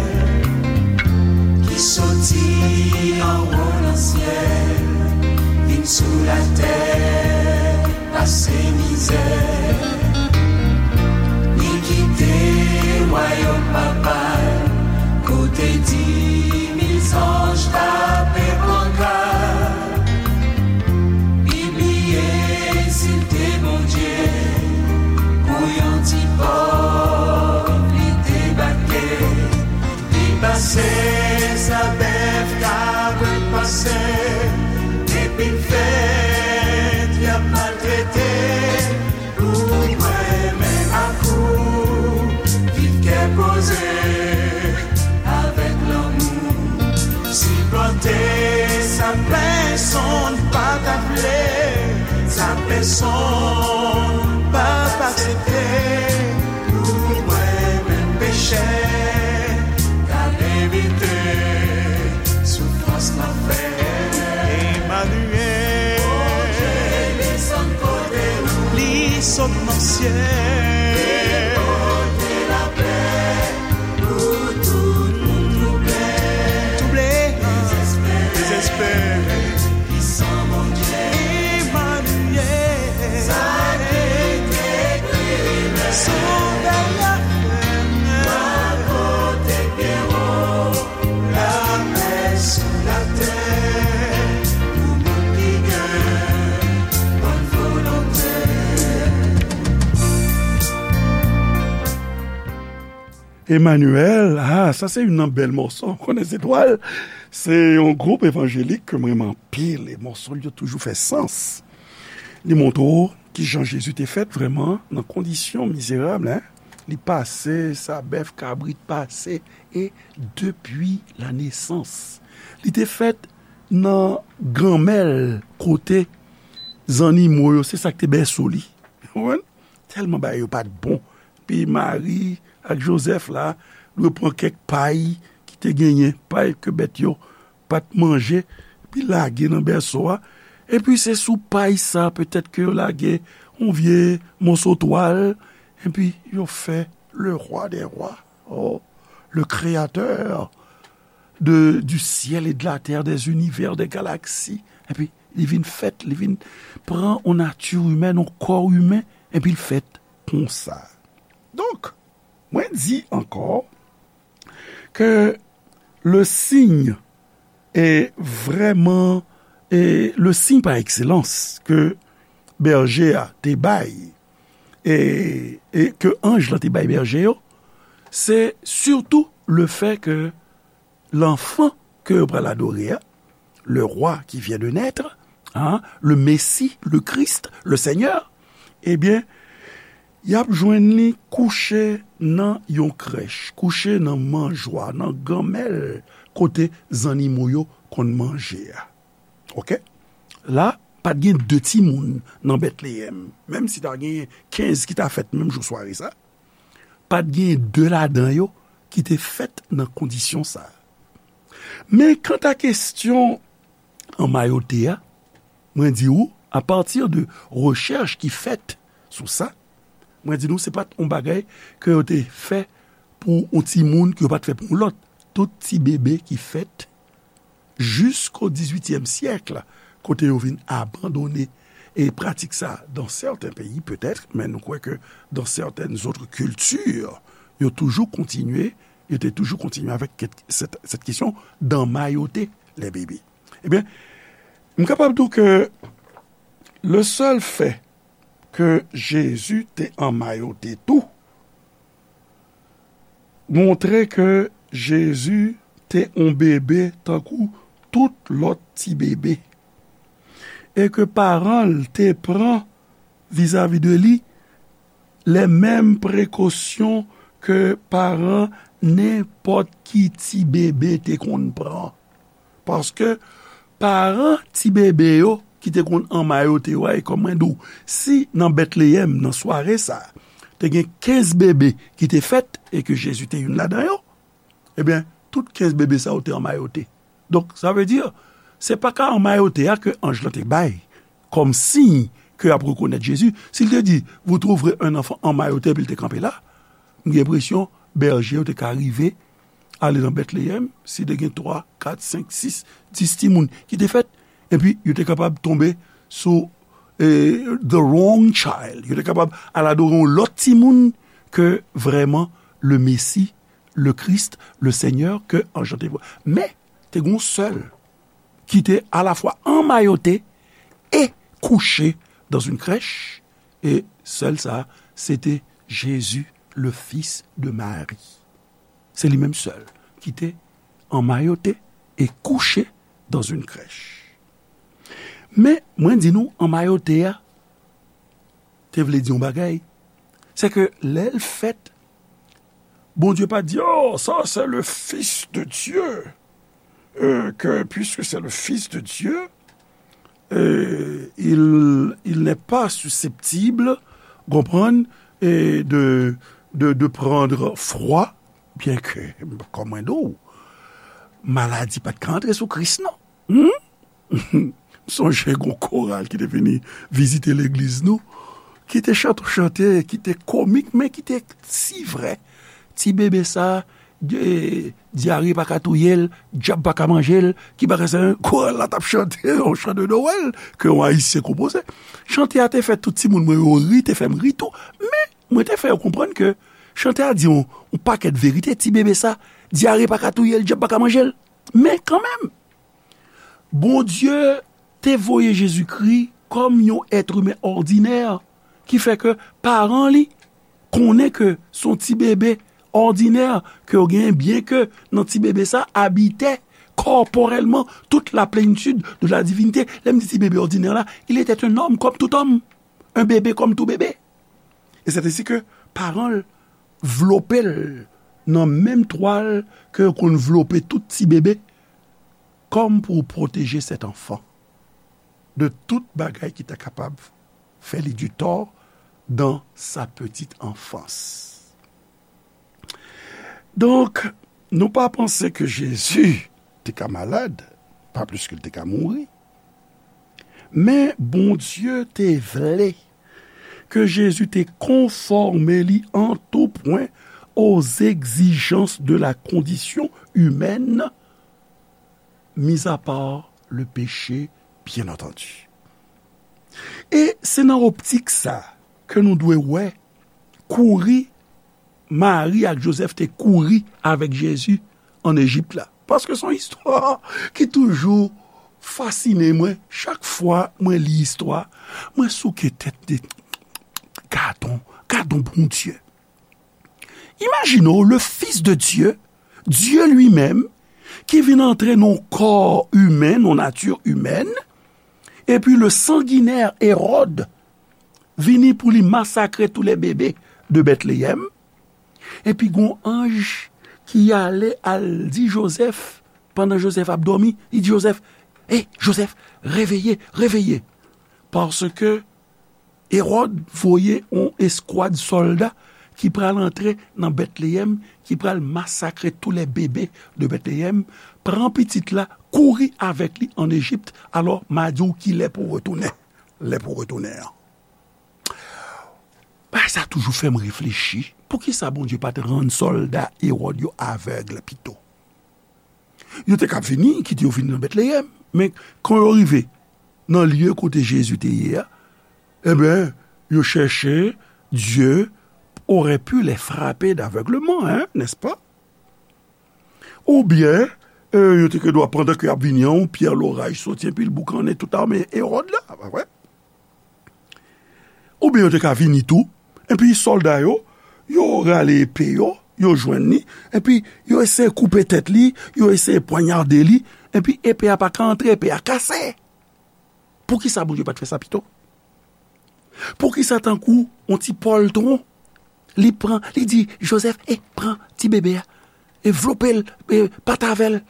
ki soti anwo nan syèl, vin sou latè, pase mizè. Li kite wayòm Papa l, kote di mil zanj tape panka. Li bliye si l te Bondye, pou yon ti pòv li debake. Li pase sa bèf ka pran pase, epi l fèt y ap maltrete. Pou mwen menm ak ou, viv kè poze, avèk lanmou, sipòte sa pèsonn pa ta vle, sa pèsonn p ap aksepte. Pou mwen menm pechè, k al evite soufrans. Emmanuel, ah, sa se youn nan bèl mòso. Konnen Zetwal, se yon gwoup evanjelik ke m renmen anpil. E mòso l yo toujou fè sans. Li montre w kijan Jezi te fèt vrèman nan kondisyon mizerab, en. Li pase, sa bèf, kabrit pase, e depi la nesans. Li te fèt nan granmèl kote zannimo yo, se sa k te bèso li. Ou konprann? Tèlman bagay yo pa t bon. Pi Mari ak Jozèf la, dwe pran kèk pay ki te genyen, pay ke bèt yo pa t manje, epi lage nan bèso a. Epi se sou pay sa, petèt ke yo lage yon vye moso twal, epi yo fè le roi des rois, oh, le créateur de, du ciel et de la terre, des univers, des galaxies. Epi li vin fèt, li vin pran yon nati imèn, yon kò imen, epi l fèt konsa. Donk, mwen di ankò ke le signe e vrèman, e le signe par excellence ke bèje a te bay, e, e ke anj lan te bay bèje yo, se sitou le fè ke l'enfant ke yo pral adore a, le roi qui vient de naître, hein, le Messie, le Christ, le Seigneur, ebyen, y ap jwenn li kouche nan yon krèch, kouche nan manjwa, nan granmèl kote zannimo yo konn manje a. Oke? La, pa t gen de timoun nan Betleyèm, menm si ta gen kenz ki ta fèt menm jou sware sa, pa t gen de ladan yo ki te fèt nan kondisyon sa a. Men kanta kesyon anmayote a, mwen di ou, apati de rechèch ki fèt sou sa, mwen di nou se pa t yon bagay ke yo te fè pou yon timoun, ke yo pa t fè pou yon lòt. Tout ti bebe ki fèt jisko dizuityèm syèk, kote yo vin abandone e pratik sa dans certains pays peut-être, men nou kwè ke dans certaines autres cultures, yo toujou kontinye, yo te toujou kontinye avèk ket-, cette, cette question d'emmailloter les bébés. Ebyen, m kapab di w ke le seul fait ke Jezi te anmayote tou, montre ke Jezi te yon bebe tankou tout lòt ti bebe, e ke paran l te pran vizavi de li les mêmes précautions ke paran nenpòt ki ti bebe te konn pran. Paske paran ti bebe yo ki te konn anmayote yo a, e kòm mwen di w, si nan Betleyèm, nan sware sa a, te gen kenz bebe ki te fèt e ke Jezi te youn ladan yo, ebyen, tout kenz bebe sa yo te anmayote. Donk, sa vle di, se pa ka anmayote a ke anj lan te bay kòm siy ke y ap rekonèt Jezi. Si l te di, vous trouverez un enfant emmailloté, epi l te kanpe la, m gen enpresyon bèje yo te ka rive ale nan Betleyèm, si te gen twa, kat, senk, sis, dis timoun ki te fèt, epi yo te kapab tonbe sou, eh, the wrong child. Yo te kapab al adore yon lòt timoun ke vrèman le Messie, le Christ, le Seigneur, ke anj lan te vwa. Men, te gen yon sèl ki te alafwa anmayote e kouche dans une crèche, e sèl sa, se te Jésus, le fils de Marie. Se li menm sèl ki te anmayote e kouche dans une crèche. Men, mwen di nou, anmayote a te vle di yon bagay. Se ke lè l fèt, Bondye pa di, oh, ça, c'est le Fils de Dieu. Euh, que, puisque c'est le Fils de Dieu, euh, il, il n'est pas susceptible, konprann, et de, de, de prendre froid, byenke, kòm mwen di w, maladi pa t ka antre sou Kris, non. Hmm? M sonje gon koral ki te vini vizite legliz nou, ki te chante yon chante ki te komik, men ki te si vrè. Ti bebe sa, de, dyare pa ka touye l, dyab pa ka manje l, ki pa ka sa, koral la t ap chante yon chan de Nowèl ke yon Ayisyen konpoze. Chante a te fè tout timoun mwen yo ri, te fè m ri tou, men mwen te fè yo konprann ke chante a di yon, yon pakèt verite, ti bebe sa, dyare pa ka touye l, dyab pa ka manje l. Men kanmenm, Bondye te voye Jezikri kòm yon èt imen òdinè, ki fè ke paran li konnen ke se yon ti bebe òdinè ke yo genyen, byen ke nan ti bebe sa abitè kòpòrèlman toute la plénitude de la divinité. Lè m di ti bebe òdinè la, il était un homme comme tout homme, un bébé comme tout bébé. E c'est ainsi que paran l vlope l nan menm twal ke yo konn vlope tout ti bebe, kòm pou pwoteje cet enfant de tout bagay ki ta kapab fè li du tort dans sa petite enfance. Donk, nou pa panse ke Jezi te ka malad, pa plis ke l te ka mouri. Men Bondye te vle ke Jezi te konfòme li an tou pwen aux exigences de la condition humaine, mis à part le péché, bien entendu. E se nan optik sa ke nou dwe wè kouri Mari ak Jozèf te kouri avèk Jezi ann Ejip la. Paske se yon istwa ki toujou fasine mwen. Chak fwa mwen li istwa, mwen souke tèt de, gadon, gadon Bondye. Imajine w, le Fils de Dieu, Dieu lui-même, ki vin antre nan yon kò imen, nan yon nati imèn, epi le sanginè Ewòd vini pou li masakre tous les bébés de Bethléem, epi gon anj ki ale al di Jozèf, pandan Jozèf ap dòmi, li di Jozèf, "Hey, Jozèf, réveillez, réveillez, paske Ewòd voye yon eskwad sòlda ki pral antre nan Bethléem, ki pral masakre tous les bébés de Bethléem. Pran pitit la, kouri avèk li ann Ejip, alò m a di w kilè pou w retounen, lè pou w retounen an." Bagay sa toujou fè m reflechi. Poukisa Bondye pa t rann sòlda Ewòd yo avèg pito? Yo te ka vini, kite yo vini nan Bethléem, men kan yo rive nan lye kote Jezi te ye a, ebyen, yo chèche, Dieu aurait pu les frapper d'aveuglement, hein, n'est-ce pas? Oubyen, e, yo te gen dwa, pandan ke y ap vini an, yon pyè loraj soti, epi l boukannen tout ame Ewòd la, pa vre? Oubyen yo te ka vini tou, epi sòlda yo, yo rale epe yo, yo jwenn li, epi yo eseye koupe tèt li, yo eseye pwanyade li, epi epe a pa ka antre, epe a kase. Poukisa Bondye pa t fè sa pito? Poukisa tankou yon ti pòltwon, li pran, li di Jozèf, "E, pran ti bebe a, e vlope l, e pati avè l,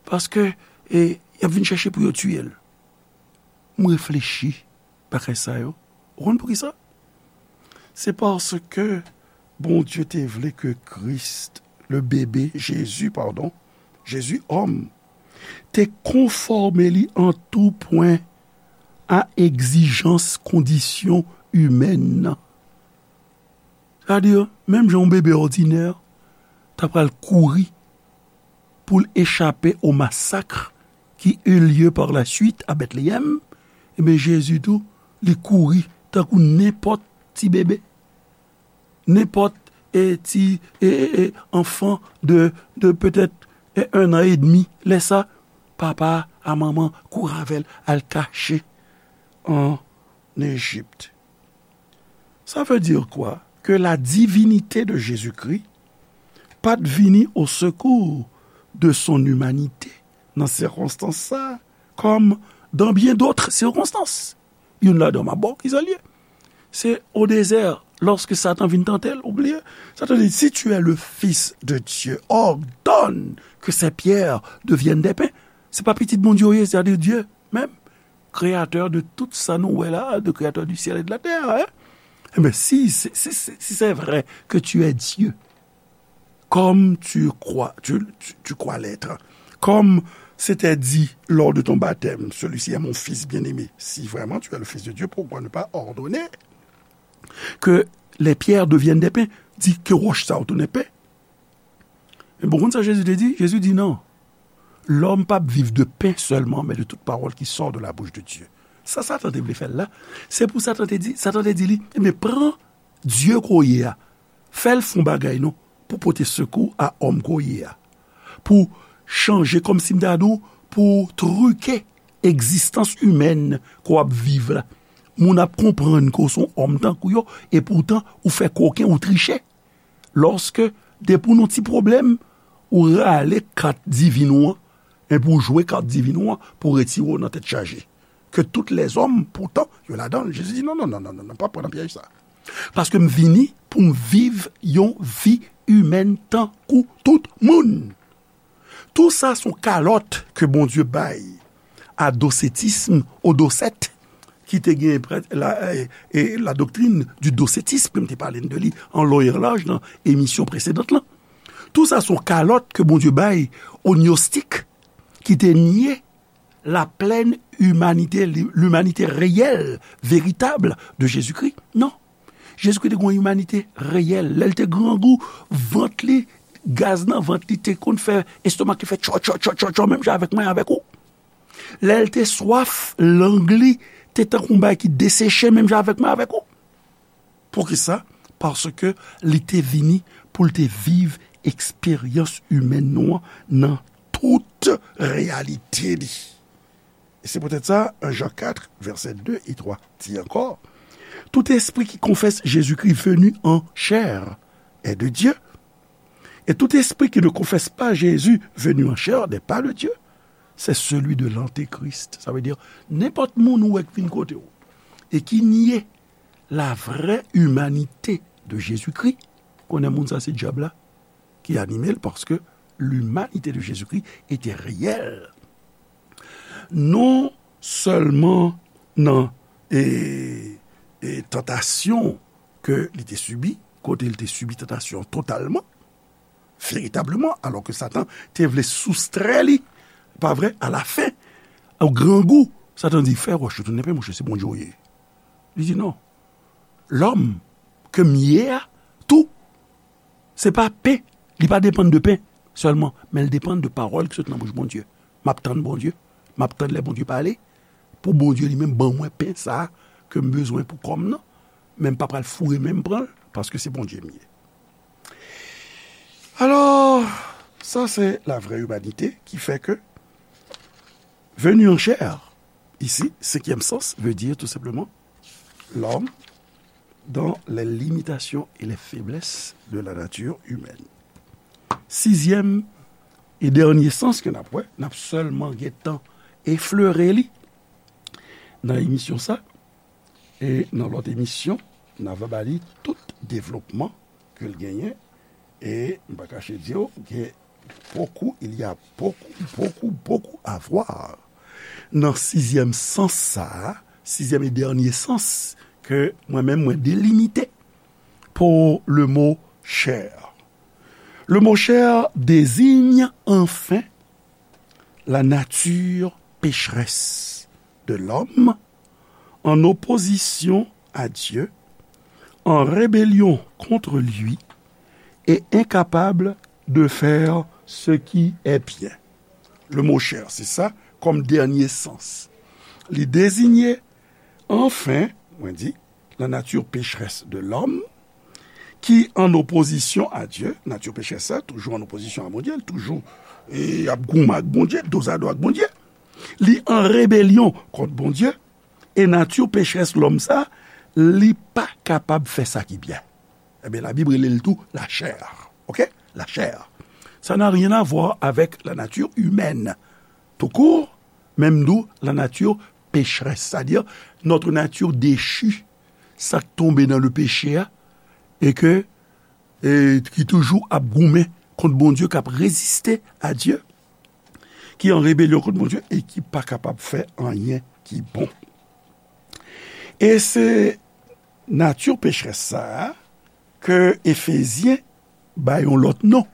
paske, e, y ap vin chèche pou yo tiye l"? M reflechi bagay sa yo. Ou konn poukisa? Se paske Bondye te vle ke Kris, le bebe, Jezi, padon, Jezi òm, te konfòme li an tou pwen a egzijans kondisyon imèn nan. Sa vle di, menm jan yon bebe òdinè ta pral kouri pou l echape o masak ki eut lieu par la suite à Bethléem, ebyen, Jezi tou, li kouri tankou nenpòt ti bebe, nenpòt, e, ti, e, e, e, enfant de, de peut-être, e, un an et demi. Lè sa, papa a manman kouri avè l al kache an Ejip. Ça veut dire quoi? Que la divinité de Jésus-Christ pa t vini au secours de son humanité nan sikonstans sa, comme dans bien d'autres circonstances. Youn ladan m ap ba w ki sa l ye. Se o dezè, lòske Satan vin tante l, ou bliye, Satan di, "Si tu es le Fils de Dieu, ordonne que ces pierres deviennent des pains." Se pa pitit Bondye w ye, c'est-à-dire Dieu même, créateur de tout sa nou wè la, de créateur du ciel et de la terre, hein? Eh bien, si, si, si, si c'est vrai que tu es Dieu, comme tu crois, tu, tu, tu crois l'être, comme c'était dit lors de ton baptême, celui-ci est mon fils bien-aimé. Si vraiment tu es le Fils de Dieu, pourquoi ne pas ordonner que les pierres deviennent des pains? Di ke wòch sa yo tounen pen. Men bon, konn sa Jezi te di? Jezi di, "Non. L'homme p ap viv de pain seulement, mais de toute parole qui sort de la bouche de Dieu." Sa Satan te vle fè l la, se pou Satan te di, Satan te di li, "Ebyen, pran Dye ke w ye a, fè l fè yon bagay non, pou pote sekou a òm ke w ye a, pou chanje, kòmsi m ta di w, pou trike egzistans imèn ke w ap viv la. Moun ap konprann ke w se yon òm tankou yo, e poutan ou fè koken, ou triche." Lòske Depi w nan ti pwoblèm, ou rale kat divin ou an, epi w jwe kat divin ou an pou retire w nan tèt chaje. Ke tout lèzòm, poutan, yo ladan l. Jezi di, "Non, non, non, non, non, non, pa pran nan pyèj sa. Paske m vini pou m viv yon vi imèn tankou tout moun." Tou sa se yon kalòt ke Bondye bay a dosetism, o dosèt, ki te gen prè-, la, e, e, la doktrin di dosetism, ke m te pale de li an long e an laj nan emisyon presedan lan. Tou sa se yon kalòt ke Bondye bay o gnostik ki te nye la plèn imanite, li-, limanite reyèl, veritab de Jezikri. Non. Jezikri te gen yon imanite reyèl. Lè l te grangou, vant li, gaz nan vant li te konn fè, estomak li fè tchò, tchò, tchò, tchò, tchò, menm jan avèk mwen, avèk ou. Lè l te swaf, lang li te tankou yon bagay ki deseche, menm jan avèk mwen, avèk ou. Poukisa? Paske li te vini pou l te viv eksperyans imèn nou an nan tout reyalite li. E se poutèt sa, en Jan kat, vèsè de e twa di ankò, "Tout esprit qui confesse Jésus-Christ venu en chair est de Dieu, et tout esprit qui ne confesse pas Jésus venu en chair n'est pas de Dieu. C'est celui de l'antéchrist." Sa vle di, nenpòt moun ou wè k vin kote w e ki nye la vraie humanité de Jésus-Christ, konnen moun sa se dyab la ki anime l, paske limanite de Jezikri ete reyèl. Non sèlman nan, e, e, tantasyon ke li te sibi, kote li te sibi tantasyon totalman, veritableman, alò ke Satan te vle soustrè li, pa vre, alafen, o grangou, Satan di, "Fè wòch yo tounen pen, monchè, se Bondye w ye." Li di, "Non. Lòm ke m ye a, tou, se pa pen. Li pa depann de pen sèlman, men l depann de pawòl ki sot nan bouch Bondye. M ap tann Bondye. M ap tann lè Bondye pale. Pou Bondye li menm ban mwen pen sa a ke m bezwen pou kò m nan. Men m pa pral foure men m pran l, paske se Bondye m ye." Alò, sa se la vraie humanité ki fè ke venu en chair, ici, cinquième sens, veut dire tout simplement l'homme dans les limitations et les faiblesses de la nature humaine. Sizyèm e dènye sans ke n ap wè, n ap sèlman gentan eflere li nan emisyon sa, e nan lòt emisyon, n a va ba li tout devlopman ke l genyen, e m pa kache di w, gen beaucoup, il y a beaucoup, beaucoup, beaucoup à voir nan sizyèm sans sa a, sizyèm e dènye sans ke mwen menm mwen delimite pour le mot chair. Le mot chair désigne enfin la nature pécheresse de l'homme en opposition à Dieu, en rébellion contre lui et incapable de faire ce qui est bien. Le mot chair, se sa kòm dènye sans. Li deziye, anfen, mwen di, la nature pécheresse de l'homme, ki an opozisyon a Dye, nati pecherès sa, toujou an opozisyon a Bondye, l toujou, e, ap goumen ak Bondye, dozado ak Bondye. Li an rebelyon kont Bondye, e nati pecherès lòm sa, li pa kapab fè sa ki byen. Ebyen, Labib rele l tou lachè. Oke? Lachè. Ça n'a rien à voir avec la nature humaine, tout court, menm tou la nature pécheresse, c'est-à-dire notre nature déchue, sa k tonbe nan le péché a, e ke, e ki toujou ap goumen kont Bondye, k ap reziste a Dye, ki an rebelyon kont Bondye e ki pa kapab fè anyen ki bon. E se nati pecherès sa a ke Efezyen bay yon lòt non.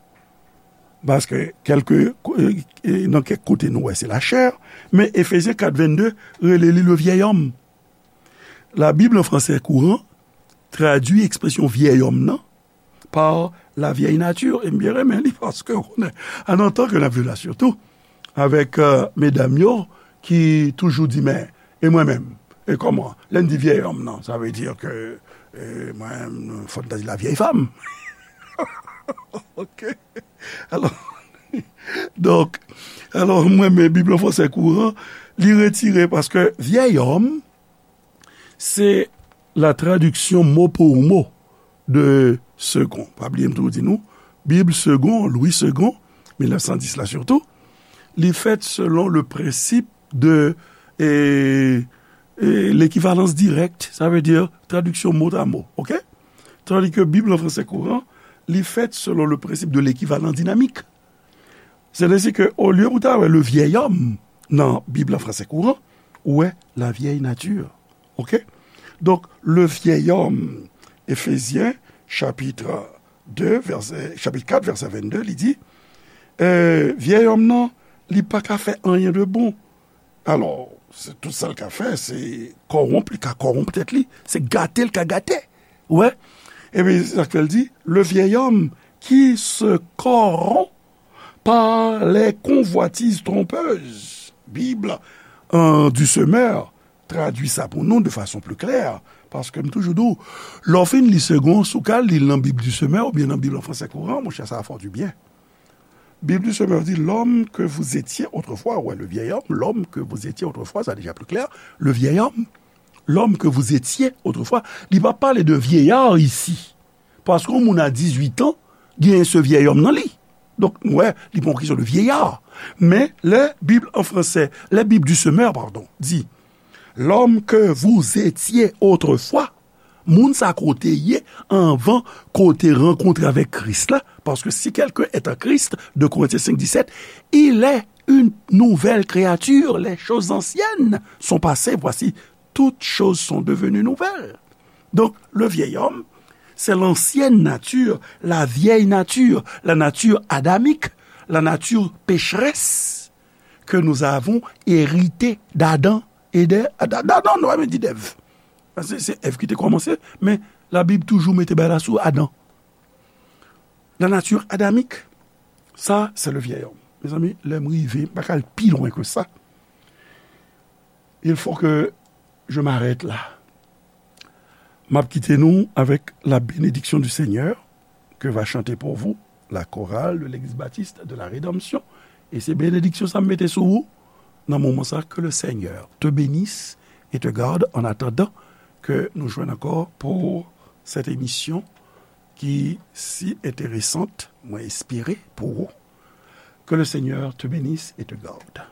Paske kèlke, e, e, nan kèk kote nou wè se lachè, men Efezyen kat vennde rele li le vieil homme. La Bible en français courant tradui ekspresyon vieil homme nan par la vieille nature. E m byen renmen li paske w konnen, an antan ke n ap viv la sitou, avèk, e, medam yo ki toujou di, men, e mwen menm? E kòman? Lè n di vieil homme nan, sa vle di ke, e, mwen menm, fò n ta di la vieille femme. Oke? Alò, donk, alò, mwen, men Bib an fransè kouran, li retire paske vieil homme, se la traduction mot pour mot de second. Pa bliye m toujou di nou, Bib Segond, Louis Segond, mil nèf san dis la sitou, li fèt selon le prensip de, e, e, l'équivalence directe, sa vle di tradiksyon mot à mot, oke? Tandis ke Bib an fransè kouran, li fèt selon le prensip de l'équivalence dynamique. Sètadi ke olye pou ta wè le vieil homme nan Bib an fransè kouran, ou wè la vieille nature. Oke? Donk, le vieil homme, Efezyen, chapit de, vèsè, chapit kat, vèsè vennde, li di, e, vyèy òm nan, li pa ka fè anyen de bon. Alò, se tout sa l ka fè, se kòwonp, li ka kòwonp tèt li, se gate l ka gate. Ou wè? Epi, se sa k fè l di, le vieil homme qui se corrompt par les convoitises trompeuses. Bib, euh, du Semeur tradui sa pou nou de fason pli klè, paske m toujou di w, lè w fin li Segond, si w ka li l nan Bib du Semeur oubyen nan Bib an fransè kouran, monchè, sa va fè w du bien. Bib du Semeur di, l'homme que vous étiez autrefois, ouais, le vieil homme, l'homme que vous étiez autrefois, sa deja pli klè, le vieil homme, l'homme que vous étiez autrefois, li pa pale de vieillard isi. Paske yon moun a dizuit an, genyen se vyèy òm nan li. Donk, nou wè, li pa yon kesyon de vieillard. Men, lè Bib an fransè, lè Bib du Semeur, pardon, di, l'homme que vous étiez autrefois, moun sa kote ye anvan kote rankontre avèk Kris la, paske si quelqu'un est en Christ, deux Corinthiens cinq dix-sept, il est une nouvelle créature, les choses anciennes sont passées, voici, toutes choses sont devenues nouvelles. Donc, le vieil homme, c'est l'ancienne nature, la vieille nature, la nature adamique, la nature pécheresse que nous avons héritée d'Adam et d'Ève. D'Adam, non, nou pa di d'Ève. Se, se Èv ki te kòmanse, men Labib toujou mete bagay la sou Adan. La nature adamique, ça, c'est le vieil homme. Mezanmi, lè m rive, m pa ka al pi lwen ke sa. Il faut que je m'arrête là. M ap kite nou avec la bénédiction du Seigneur que va chanter pour vous la chorale de l'église baptiste de la Rédemption. E se benediksyon sa m mete sou ou nan moman sa. Que le Seigneur te bénisse et te garde en attendant que nou jwenn ankò pour cette émission qui si intéressante, mwen espere pou ou. Que le Seigneur te bénisse et te garde.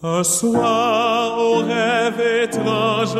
Un soir, au rêve étrange,